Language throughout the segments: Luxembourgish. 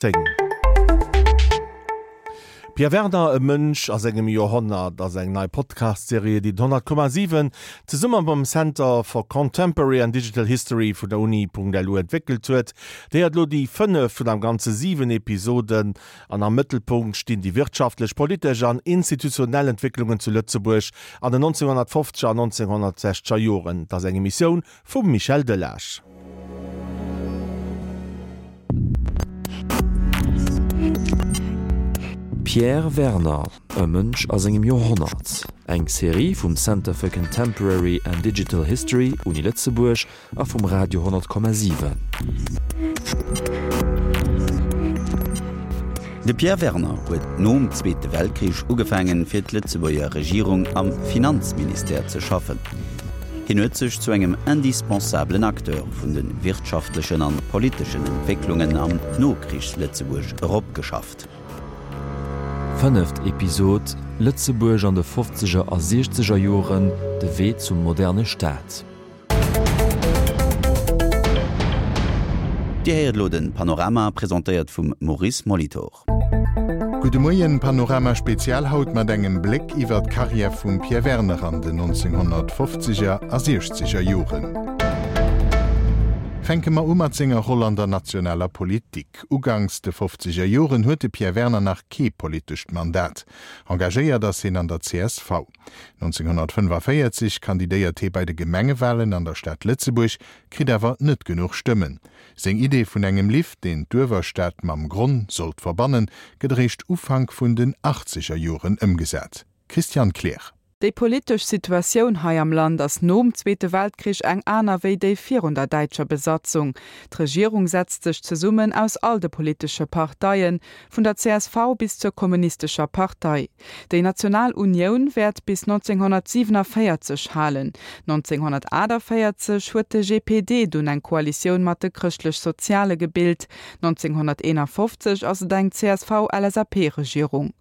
10. Pierre Werner, E Mënsch a sengem Joerhonnert ass eng nei Podcast-Serie, déi den 100,7 zesumme mam Center for Contemporary and Digital History vun der Uni.lu entwéckelt huet. Déi hat elo déi fënneft vun am Ganze 7 Episoden an am Mëttelpunkt stinn déi wirtschaftlech, politesch an institutionell Entwécklungen zu Lëtzebuerg an den 1950er an 1960er Joren. Et ass eng Emissioun Vum Michel Delage. Pierre Werner, E Mënsch a sengem Joerhonnert, eng Serie vum Center for Contemporary and Digital History, Uni Lëtzebuerg, a vum Radio 10,7. De Pierre Werner huet nom Zweete Weltkrich ugefaangen, fir d'Lëtzebuerger Regierung am Finanzministère ze schaffen. Hien huet sech zu engem indispensabelen Acteur vun de wirtschaftlechen an politeschen Entwécklungen am Nokrichs-Lëtzebuerg eropgeschafft. Fënneft Episod, Lëtzebuerg an de fofzeger a siechzeger Joren, de Wee zum moderne Staat. Dir héiert elo den Panorama, presentéiert vum Maurice Molitor. Gudde Moien, Panorama Spezial haut mat engem Bléck iwwer d'Karriär vum Pierre Werner an den 1950er a siechzeger Joren. Fänke mer u mat senger Roll an der nationaler Politik. Uganks de fofzeger Joren huet de Pierre Werner nach kee politescht Mandat. Engagéiert ass hien an der csv. 1945 kandidéiert hie bei de Gemengewalen an der Stad Lëtzebuerg, kritt awer net genuch Stëmmen. Seng Idee vun engem Lift, deen d'Uewerstad mam Gronn sollt verbannen, gëtt eréischt Ufank vun den achtzeger Joren ëmgesat. Christiane Kleer. Déi politesch Situatioun hei am Land ass nom Zweete Weltkrich eng aner wéi déi virun der däitscher Besatzung. D'Regierung setzt sech zesummen aus all de politesche Parteien, vun der csv bis zur Kommunistescher Partei. Déi National Unioun wäert bis 1947 halen. 1948 huet de GPD dunn eng Koalitioun mat de Chrëschtlech-Soziale gebilt. 1951 ass et eng CSV-LSAP-Regierung.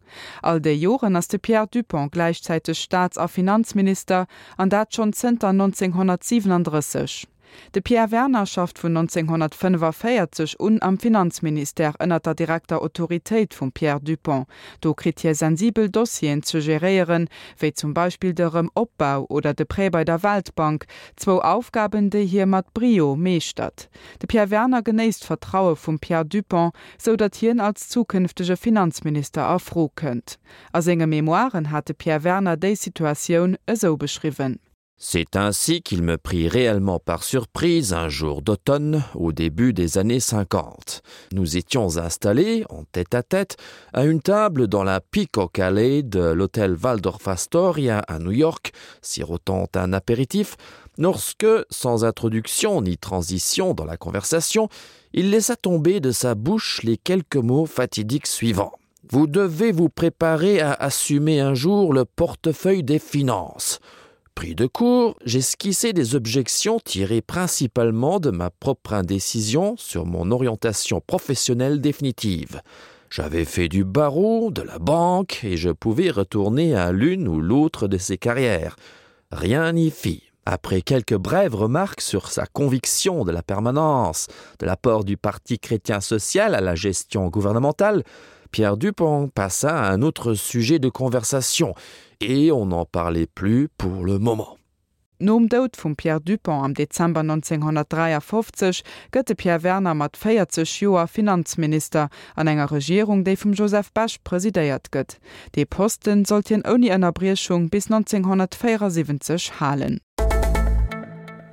All déi Joren ass de Pierre Dupong gläichzäiteg Staats a Finanzminister, an dat schonn zënter 1937. De Pierre Werner schafft vun 1945 un am Finanzministère ënner der direkter Autoritéit vum Pierre Dupong. Do kritt hie sensibel Dossieren ze geréieren, wéi zum Beispill de Rëm-Opbau oder de Prêt bei der Weltbank, zwou Aufgaben, déi hie mat Brio meeschtert. De Pierre Werner genéisst d'Vertraue vum Pierre Dupong, sou datt hien als zukünftege Finanzminister a Fro kënnt. A senge Memoiren hat de Pierre Werner déi Situatioun esou beschriwwen. C'est ainsi qu'il me prit réellement par surprise un jour d'automne au début des années 50. Nous étions installés en tête à tête à une table dans la Peacock Alley de l'hôtel Waldorf Astoria à New York, sirotant un apéritif, lorsque, sans introduction ni transition dans la conversation, il laissa tomber de sa bouche les quelques mots fatidiques suivants. Vous devez vous préparer à assumer un jour le portefeuille des finances. Pris de court, j'esquissais des objections tirées principalement de ma propre indécision sur mon orientation professionnelle définitive. J'avais fait du barreau, de la banque et je pouvais retourner à l'une ou l'autre de ces carrières. Rien n'y fit. Après quelques brèves remarques sur sa conviction de la permanence, de l'apport du parti chrétien social à la gestion gouvernementale, Pierre Dupont passa à un autre sujet de conversation et on n'en parlait plus pour le moment. Nom Doud vum Pierre Dupong am Dezember 1953 gëtt de Pierre Werner mat 40 Joer Finanzminister an enger Regierung, déi vum Joseph Bech presidéiert gëtt. Dee Posten sollt hien ouni Ënnerbriechung bis 1974 halen.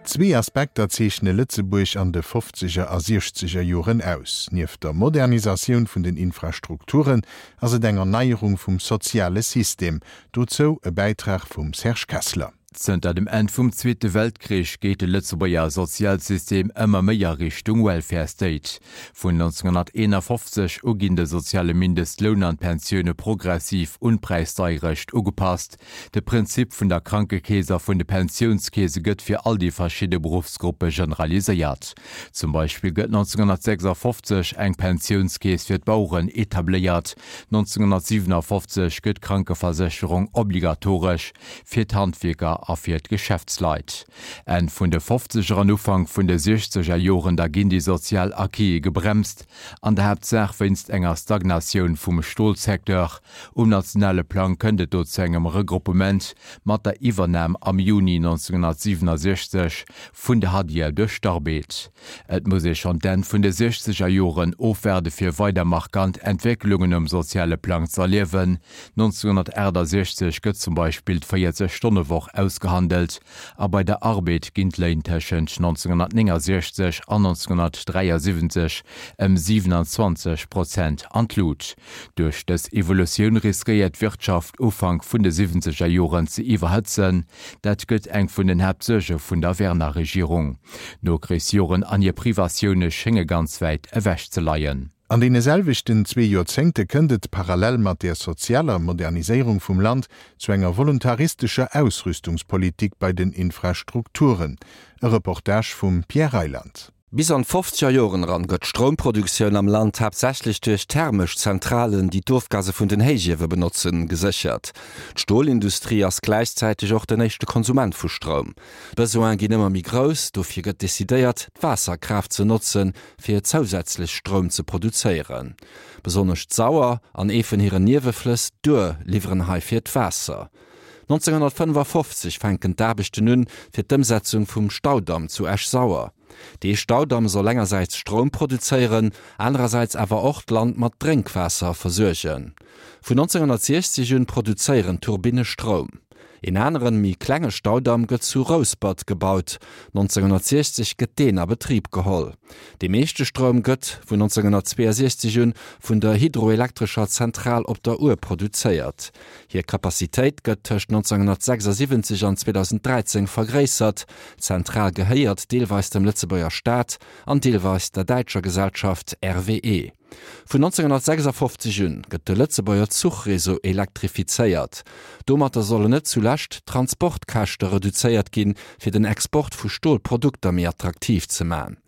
Zwee Aspekter zeechne Lëtzebuerg an de fofzeger a siechzeger Joren aus. Nieft der Modernisatioun vun den Infrastrukturen ass et eng Erneierung vum soziale System. Dozou e Bäitrag vum Serge Kessler. Zënter dem Enn vum Zweete Weltkrich geet de Lëtzebuerger Sozialsystem ëmmer méi a Richtung Welfare State. Vun 1951 u ginn de soziale Mindestloun an d'Pensioune progressiv un d'Präisdeierecht ugepasst. De Prinzip vun der Krankekeess a vun de Pensiounskeese gëtt fir all déi verschidde Beruffsgruppe generaliséiert. Zum Beispill gëtt 1956 eng Pensiounskeess fir d'Baueren etabléiert, 1957 gëtt d'Krankeversécherung obligatoresch fir d'Handwierker. a fir d'Geschäftsleit. Enn vun de Fofzeger an Ufank vun de Siechzeger Joren da ginn déi sozial Acquise gebremst, an der Haaptsaach wéinst enger Stagnatioun vum Stolsecteur. Um nationale Plang kënnt et do zu engem Regruppement mat der Iwwernam am Juni 1967 vun der Hadier duerch d'Arbed. Et muss ee schonn d'Enn vun de siechzeger Joren ofwaarde fir weider markant Entwécklungen um soziale Plang z'erliewen. 1968 gëtt zum Beispill d'Véierzeg Stonne Woch ausgehandelt a bei der Arbed ginn d'Léin tëschent 1969 an 1973 ëm 27 Prozent an d'Lut. Duerch dës Evolutioun riskéiert d'Wirtschaft Ufank vun de siwwenzeger Joren ze iwwerhëtzen. Dat gëtt eng vun den Haaptsuerge vun der Werner-Regierung. D'Nokrichsjoren an hir Privatioune schénge ganz wäit ewech ze leien. An deene selwechten zwee Joerzéngte kënnt et, parallel mat der sozialer Moderniséierung vum Land, zu enger voluntaristescher Ausrüstungspolitik bei den Infrastrukturen. E Reportage vum Pierre Reyland. Bis an d'fofzeger Joren eran gëtt d'Stroumproduktioun am Land haaptsächlech duerch thermesch Zentralen, déi d'Ofgase vun den Héichiewe benotzen, geséchert. D'Stolindustrie ass gläichzäiteg och den éischte Konsument vu Stroum. D'Besoine ginn ëmmer méi grouss, dofir gëtt decidéiert, d'Waasserkraaft ze notzen, fir zousätzlech Stroum ze produzéieren. Besonnesch d'Sauer an ee vun hiren Nieweflëss, d'Our, liwweren heifir d'Waasser. 1955 fänken d'Aarbechten un fir d'Ëmsetzung vum Staudamm zu Esch-Sauer. Dee Staudamm soll engersäits Stroum produzéieren, anerersäits awer och d'Land mat Drénkwaasser versuergen. Vun 1960 un produzéieren d'Turbinne Stroum. Een aneren, méi klenge Staudamm gëtt zu Rouspert gebaut. 1960 gëtt deen a Betrib geholl. Dee meeschte Stroum gëtt, vun 1962 un, vun der hydroelektrescher Zentral op der Our produzéiert. Hir Capacitéit gëtt tëscht 1976 an 2013 vergréissert. D'Zentral gehéiert deelweis dem Lëtzebuerger Staat an deelweis der däitscher Gesellschaft RWE. Vun 1956 un gëtt de Lëtzebuerger Zuchreseau elektrifizéiert. Domatter sollen net zulescht d'Transportkäschte reduzéiert ginn, fir den Export vu Stolprodukter méi attraktiv ze man.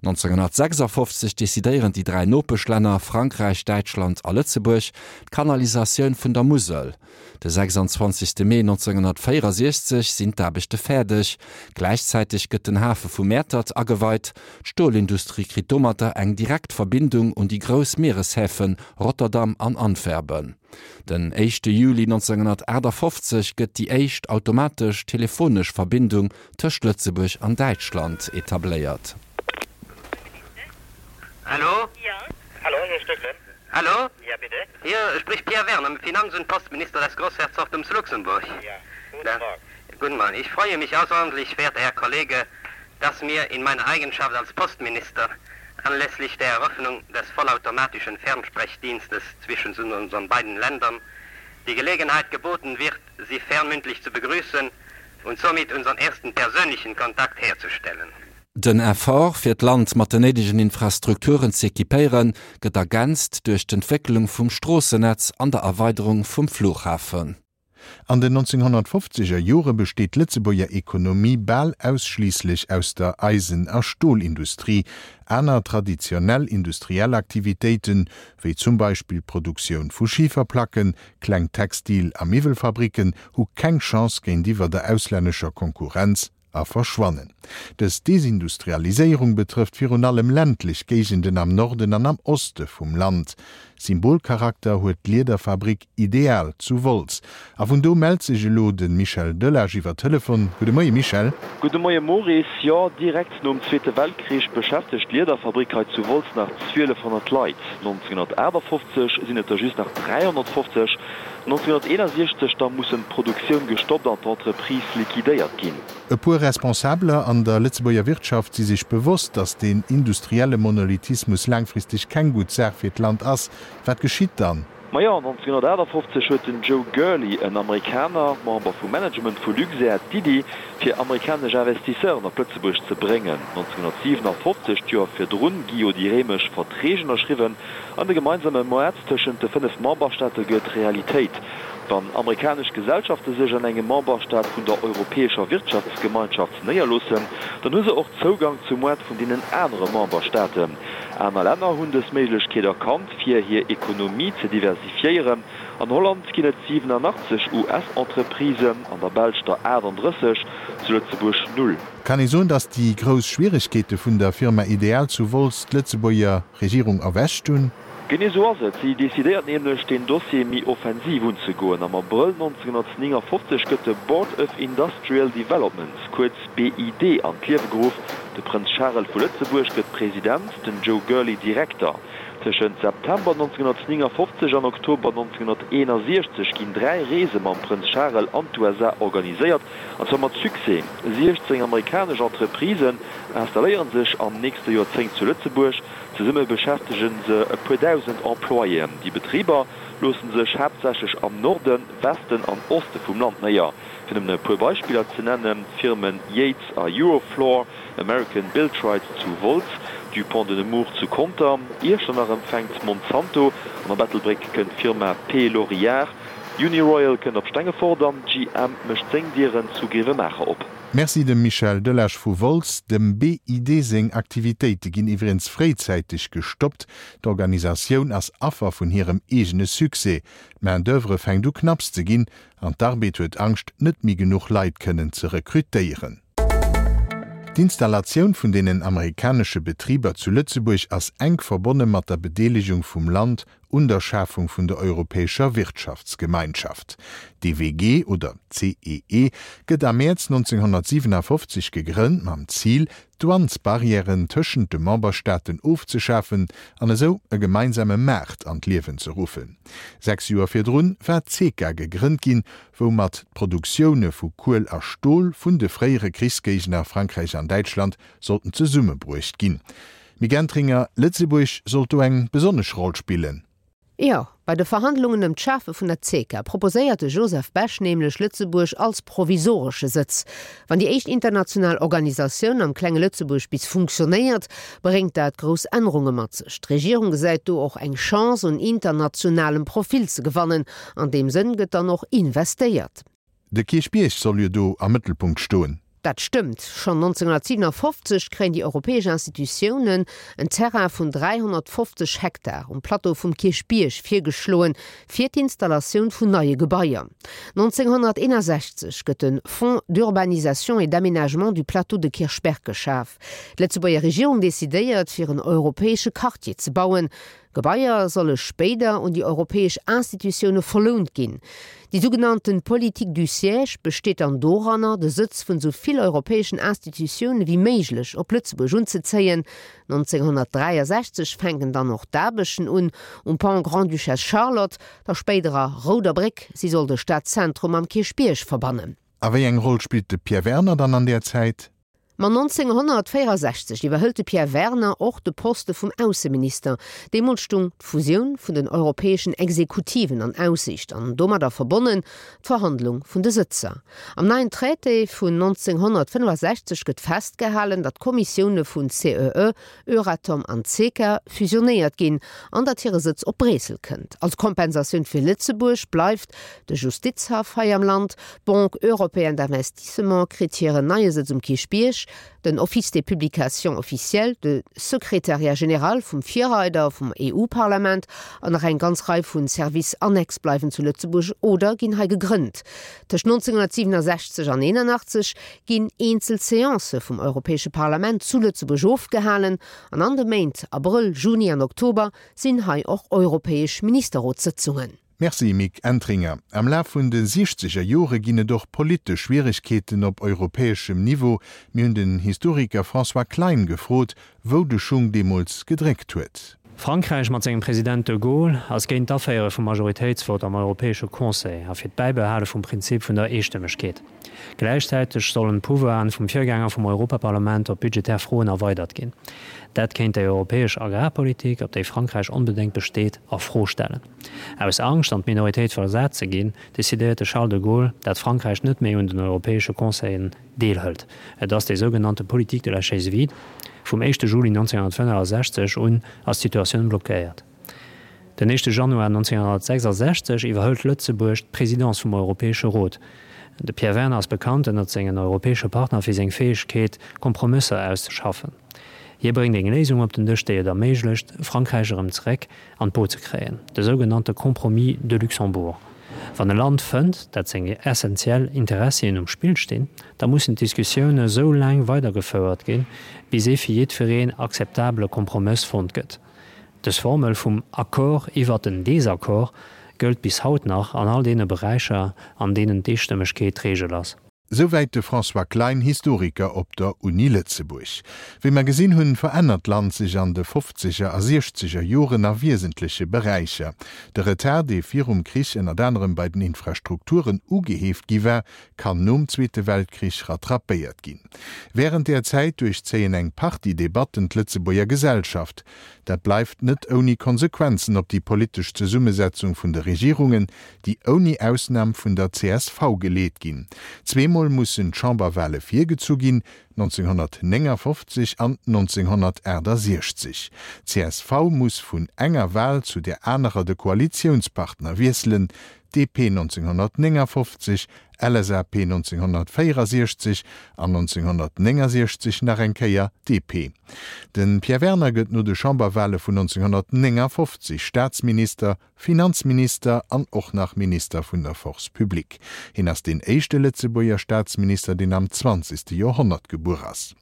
1956 decidéieren déi 3 Nopeschlänner Frankräich, Däitschland a Lëtzebuerg d'Kanalisatioun vun der Musel. De 26 Mee 1964 sinn d'Aarbechte fäerdeg. Gläichzäiteg gëtt den Hafe vu Mäertert ageweit. D'Stolindustrie kritt domatter eng direkt Verbindung un déi grouss Miereshäfen Rotterdam an Antwerpen. Den éischte Juli 1958 gëtt déi éischt automatesch telefonesch Verbindung tëscht Lëtzebuerg an Däitschland etabléiert. Hallo? Ja. Hallo, Herr Stöckle. Hallo? Ja, bitte. Hier spricht Pierre Werner, Finanz- und Postminister des Großherzogtums Luxemburg. Ja, guten ja. Morgen. Guten Morgen. Ich freue mich außerordentlich, verehrter Herr Kollege, dass mir in meiner Eigenschaft als Postminister anlässlich der Eröffnung des vollautomatischen Fernsprechdienstes zwischen unseren beiden Ländern die Gelegenheit geboten wird, Sie fernmündlich zu begrüßen und somit unseren ersten persönlichen Kontakt herzustellen. Den Effort, fir d'Land mat den néidegen Infrastrukturen z'equipéieren, gëtt ergänzt duerch d'Entwécklung vum Stroossennetz an der Erweiderung vum Flughafen. An den 1950er Jore besteet d'Lëtzebuerger Ekonomie bal ausschliisslech aus der Eisen a Stolindustrie. Aner traditionell industriell Aktivitéiten, wéi zum Beispill d'Produktioun vu Schiferplacken, kleng Textil a Miwwelfabricken, hu keng Chance géintiwwer der auslännescher Konkurrenz. a verschwannen. Dës Desindustrialiséierung betrëfft virun allem ländlech Géigenden am Norden an am Oste vum Land. Symbolcharakter huet d'Liederfabrik Ideal zu Wolz. A vun do mellt sech elo de Michel Delage iwwer Telefon. Gudde Moie Michel. Gudde Moie Maurice. Jo, direkt nom Zweete Weltkrich beschäftegt d'Liederfabrik hei zu Wolz nach 1200 Leit. 1958 sinn et der just nach 350. 1961 da mussen d'Produktioun gestoppt an d'Entreprise liquidéiert ginn. E puer Responsabeler an der Lëtzebuerger Wirtschaft si sech bewosst, datt deen industrielle Monolithismus laangfristeg keng gutt Saach fir d'Land ass. Wat geschitt dann? Majo, 1958 huet den Joe Gurley, en Amerikaner, Member vum Management vu Luxair, d'Iddi, fir amerikanesch Investisseuren op Lëtzebuerg ze bréngen. 1957, d'Joer virdrun, gi jo déi réimesch Verträg ënnerschriwwen. An de gemeinsame Moart tëschent de 5 Memberstaate gëtt Realitéit. Wann amerikanesch Gesellschafte sech an engem Memberstaat vun der Europäescher Wirtschaftsgemeinschaft néierloossen, dann hu se och Zougang zum Moart vun deenen anere Memberstaaten. Aner Länner hunn dës Méiglechkeet erkannt, fir hir Ekonomie ze diversifiéieren. An Holland ginn et 87 US-Entreprisen, an der Belsch der 38, zu Lëtzebuerg null. Kann ee soen, datt déi grouss Schwieregkeete vun der Firma Ideal zu Wolz d'Lëtzebuerger Regierung erwächt hunn? Genee sou ass et. Si decidéiert nämlech, deen Dossier méi offensiv unzegoen. Am Abrëll 1959 gëtt de Board of Industrial Development, kuerz BID, an d'Liewe geruff. De Prënz Charel vu Lëtzebuerg gëtt President, den Joe Gourley Direkter. Tëschent September 1959 an Oktober 1961 ginn 3 Reese mam Prënz Charel an d'USA organiséiert, an zwar mat Succès. 16 amerikanesch Entreprisen installéiere sech am nächste Joerzéngt zu Lëtzebuerg. Zesumme beschäftege se e puer dausend Employéen. Déi Betriber loosse sech haaptsächlech am Norden, Westen an Oste vum Land néier. Fir nëmmen e puer Beispiller ze nennen, d'Firmen Yates a Eurofloor, American Biltrite zu Wolz, Dupont de Nemours zu Conter, Iechternach empfänkt Monsanto an op Ettelbréck kënnt d'Firma P. Lorillard, Uniroyal kënnt op Stengefort an GM mécht seng Dieren zu Grevenmacher op. Merci dem Michel Delage vu Wolz. Dem BID seng Aktivitéite ginn iwwregens fréizäiteg gestoppt. D'Organisatioun ass Affer vun hirem eegene Succès. D'Main d'oeuvre fänkt u knapps ze ginn an d'Arbed huet Angscht, net méi genuch Leit kënnen ze rekrutéieren. D'Installatioun vun deenen amerikanesche Betriber zu Lëtzebuerg ass enk verbonne mat der Bedeelegung vum Land un der Schafung vun der Europäescher Wirtschaftsgemeinschaft, d'EWG oder CEE, gëtt am Mäerz 1957 gegrënnt mam Zil, d'Douanesbarrièren tëschent de Memberstaaten ofzeschafen an esou e gemeinsame Maart an d'Liewen ze ruffen. Sechs Joer virdrun war d'CECA gegrënnt ginn, woumat d'Produktioune vu Kuel a Stol vun de fréiere Krichsgéigner Frankräich an Däitschland sollten zesummebruecht ginn. Mick Entringer, Lëtzebuerg sollt do eng besonnesch Roll spillen. Jo, bei de Verhandlungen ëm d'Schafe vun der CECA proposéiert de Joseph Bech nämlech Lëtzebuerg als provisoresche Sëtz. Wann déi éischt international Organisatioun am klenge Lëtzebuerg bis funktionéiert, bréngt dat grouss Ännerunge mat sech. D'Regierung gesäit do och eng Chance, un internationalem Profil ze gewannen. An deem Sënn gëtt dann och investéiert. De Kierchbierg soll jo do am Mëttelpunkt stoen. Dat stëmmt. Schonn 1957 kréien déi europäesch Institutiounen en Terrain vun 350 Hektar um Plateau vum Kierchbierg virgeschloen, fir d'Installatioun vun neie Gebaier. 1961 gëtt de Fonds d'urbanisation et d'aménagement du plateau de Kirchberg geschaf. D'Lëtzebuerger Regierung decidéiert, fir en europäesche Quartier ze bauen. Gebaier solle spéider un déi europäesch Institutioune verlount ginn. Déi sougenannten Politique du siège besteet dann doranner, de Sëtz vun esou vill europäeschen Institutioune wéi méiglech op Lëtzebuerg unzezéien. 1963 fänken dann och d'Aarbechten un um Pont Grande-Duchesse Charlotte, der spéiderer Rouder Bréck. Si soll de Stadzentrum mam Kierchbierg verbannen. A wéi eng Roll spillt de Pierre Werner dann an där Zäit? Ma 1964 iwwerhëlt de Pierre Werner och de Poste vum Ausseminister. Deemools stung d'Fusioun vun den europäeschen Exekutiven an Aussiicht an domadder verbonnen d'Verhandlung vun de Sëtzer. Am neien Traité vun 1965 gëtt festgehalen, datt d'Kommissioune vun CEE, Euratom an CECA fusionéiert ginn an datt hire Sëtz op Bréissel kënnt. Als Kompensatioun fir Lëtzebuerg bleift de Justizhaff hei am Land, d'Banque européenne d'investissement kritt hiren neie Sëtz um Kierchbierg, den Office des publications officielles, de Secrétariat général vum Virreider vum EU-Parlament an nach eng ganz Rei vu Services annexes bleiwen zu Lëtzebuerg oder ginn hei gegrënnt. Tëscht 1967 an 81 ginn eenzel Seancë vum Europäesche Parlament zu Lëtzebuerg ofgehalen an an de Méint Abrëll, Juni an Oktober sinn hei och europäesch Ministerrotssëtzungen. Merci Mick Entringer. Am Laf vun de siechzeger Jore ginn et och politesch Schwieregkeeten op europäeschem Niveau. Mir hunn den Historiker François Klein gefrot, wou de Schung deemools gedréckt huet. Frankräich mat sengem President de Gaulle ass géint d'Aféiere vum Majoritéitsvott am Europäesche Conseil a fir d'Bäibehale vum Prinzip vun der Eestëmmegkeet. Gläichzäiteg sollen d'Pouvoiren vum Virgänger vum Europaparlament op budgetär Froen erweidert ginn. Dat kéint déi europäesch Agrarpolitik, op déi Frankräich onbedéngt besteet, a Fro stellen. Aus Angscht, an d'Minoritéit versat ze ginn, decidéiert de Charles de Gaulle, dat Frankräich net méi un den europäesche Conseillen deelhëlt. Et ass déi sougenannte Politique de la chaise vide. Vum éischte Juli 1965 un ass d'Situatioun blockéiert. Den éischte Januar 1966 iwwerhëlt Lëtzebuerg d'Presidence vum Europäesche Rot. De Pierre Werner ass bekannt ënnert sengen europäesche Partner fir seng Fäegkeet, Kompromësser auszeschaffen. Hie bréngt eng Léisung op den Dësch, déi et erméiglecht, Frankräich erëm zeréck an d'Boot ze kréien, de sougenannte Compromis de Luxembourg. Wann e Land fënnt, dat seng essentiell Interessien um Spill stinn, da mussen d'Diskussioune sou laang weidergefouert ginn, bis ee fir jiddwereen akzeptabele Kompromëss fonnt gëtt. Dës Formel vum Accord iwwert den Désaccord gëllt bis haut nach an all deene Beräicher, an deenen d'Eestëmmegkeet d'Reegel ass. Souwäit de François Klein, Historiker op der Uni Lëtzebuerg. Wéi mer gesinn hunn, verännert d'Land sech an de fofzeger a siechzeger Joren a wiesentleche Beräicher. De Retard, dee virum Krich ënnert anerem bei den Infrastrukturen ugeheeft gi war, kann nom Zweete Weltkrich rattrapéiert ginn. Wärend där Zäit duerchzéien eng Partie Debatten d'Lëtzebuerger Gesellschaft. Dat bleift net ouni Konsequenzen op déi politesch Zesummesetzung vun de Regierungen, déi ouni Ausnam vun der csv geleet ginn. Zweemol mussen d'Chamberwale virgezu ginn, 1959 an 1968. D'CSV muss vun enger Wal zu där anerer de Koalitiounspartner wiesselen, DP 1959, LSAP 1964 an 1969 nach eng Kéier DP. De Pierre Werner gëtt no de Chamberwale vun 1959 Staatsminister, Finanzminister an och nach Minister vun der Force publique. Hien ass deen éischte Lëtzebuerger Staatsminister, deen am zwanzegste Joerhonnert gebuer ass.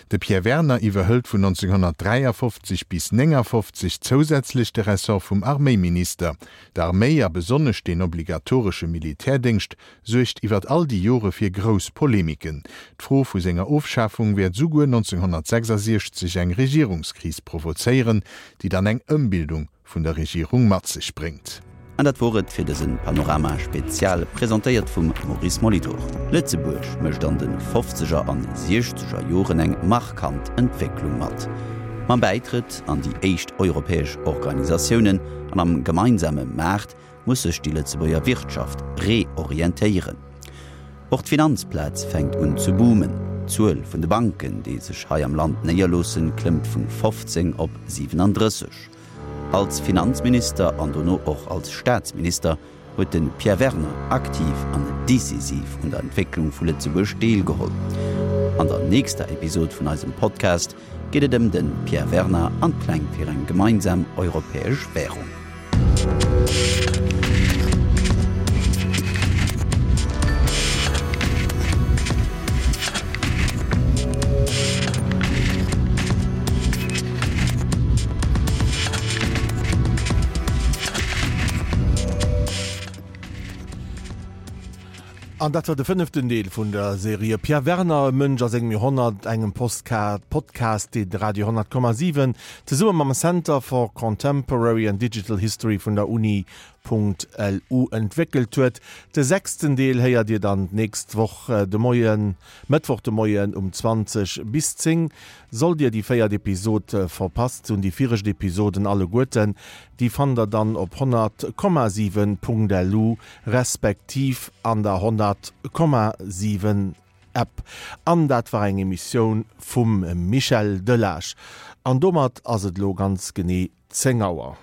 De Pierre Werner iwwerhëlt vun 1953 bis 59 zousätzlech de Ressort vum Arméiminister. D'Arméi, a besonnesch deen obligatoresche Militärdéngscht, suergt iwwert all déi Jore fir grouss Polemiken. D'Fro vu senger Ofschafung wäert souguer 1966 eng Regierungskris provozéieren, déi dann eng Ëmbildung vun der Regierung mat sech bréngt. An dat wor et fir dësen Panorama Spezial, presentéiert vum Maurice Molitor. Lëtzebuerg mécht an de fofzeger an siechzeger Joren eng markant Entwécklung mat. Mam Bäitrëtt an déi éischt europäesch Organisatiounen an am gemeinsame Maart muss sech déi Lëtzebuerger Wirtschaft reorientéieren. Och d'Finanzplaz fänkt un ze boomen. D'Zuel vun de Banken, déi sech hei am Land néierloossen, klëmmt vun 15 op 37. Als Finanzminister an dono och als Staatsminister huet de Pierre Werner aktiv an decisiv un der Entwécklung vu Lëtzebuerg deelgeholl. An der nächster Episod vun eisem Podcast geet et ëm de Pierre Werner an d'Pläng fir eng gemeinsam europäesch Wärung. An dat war de fënneften Deel vun der Serie Pierre Werner, e Mënsch a sengem Joerhonnert, engem Podcast, deen de Radio 10,7 zesumme mam Center for Contemporary and Digital History vun der Uni. LU entwéckelt huet. De sechsten Deel héiert Dir dann d'nächst Woch de Moien, Mëttwoch de Moien um 20 bis 10. Sollt Dir déi véiert Episod verpasst hunn, déi viregt Episoden alleguerten, déi fannt der dann op 100,7.lu respektiv an der 100,7 App. An dat war eng Emissioun vum Michel Delage. An domat ass et elo ganz genee 10 Auer.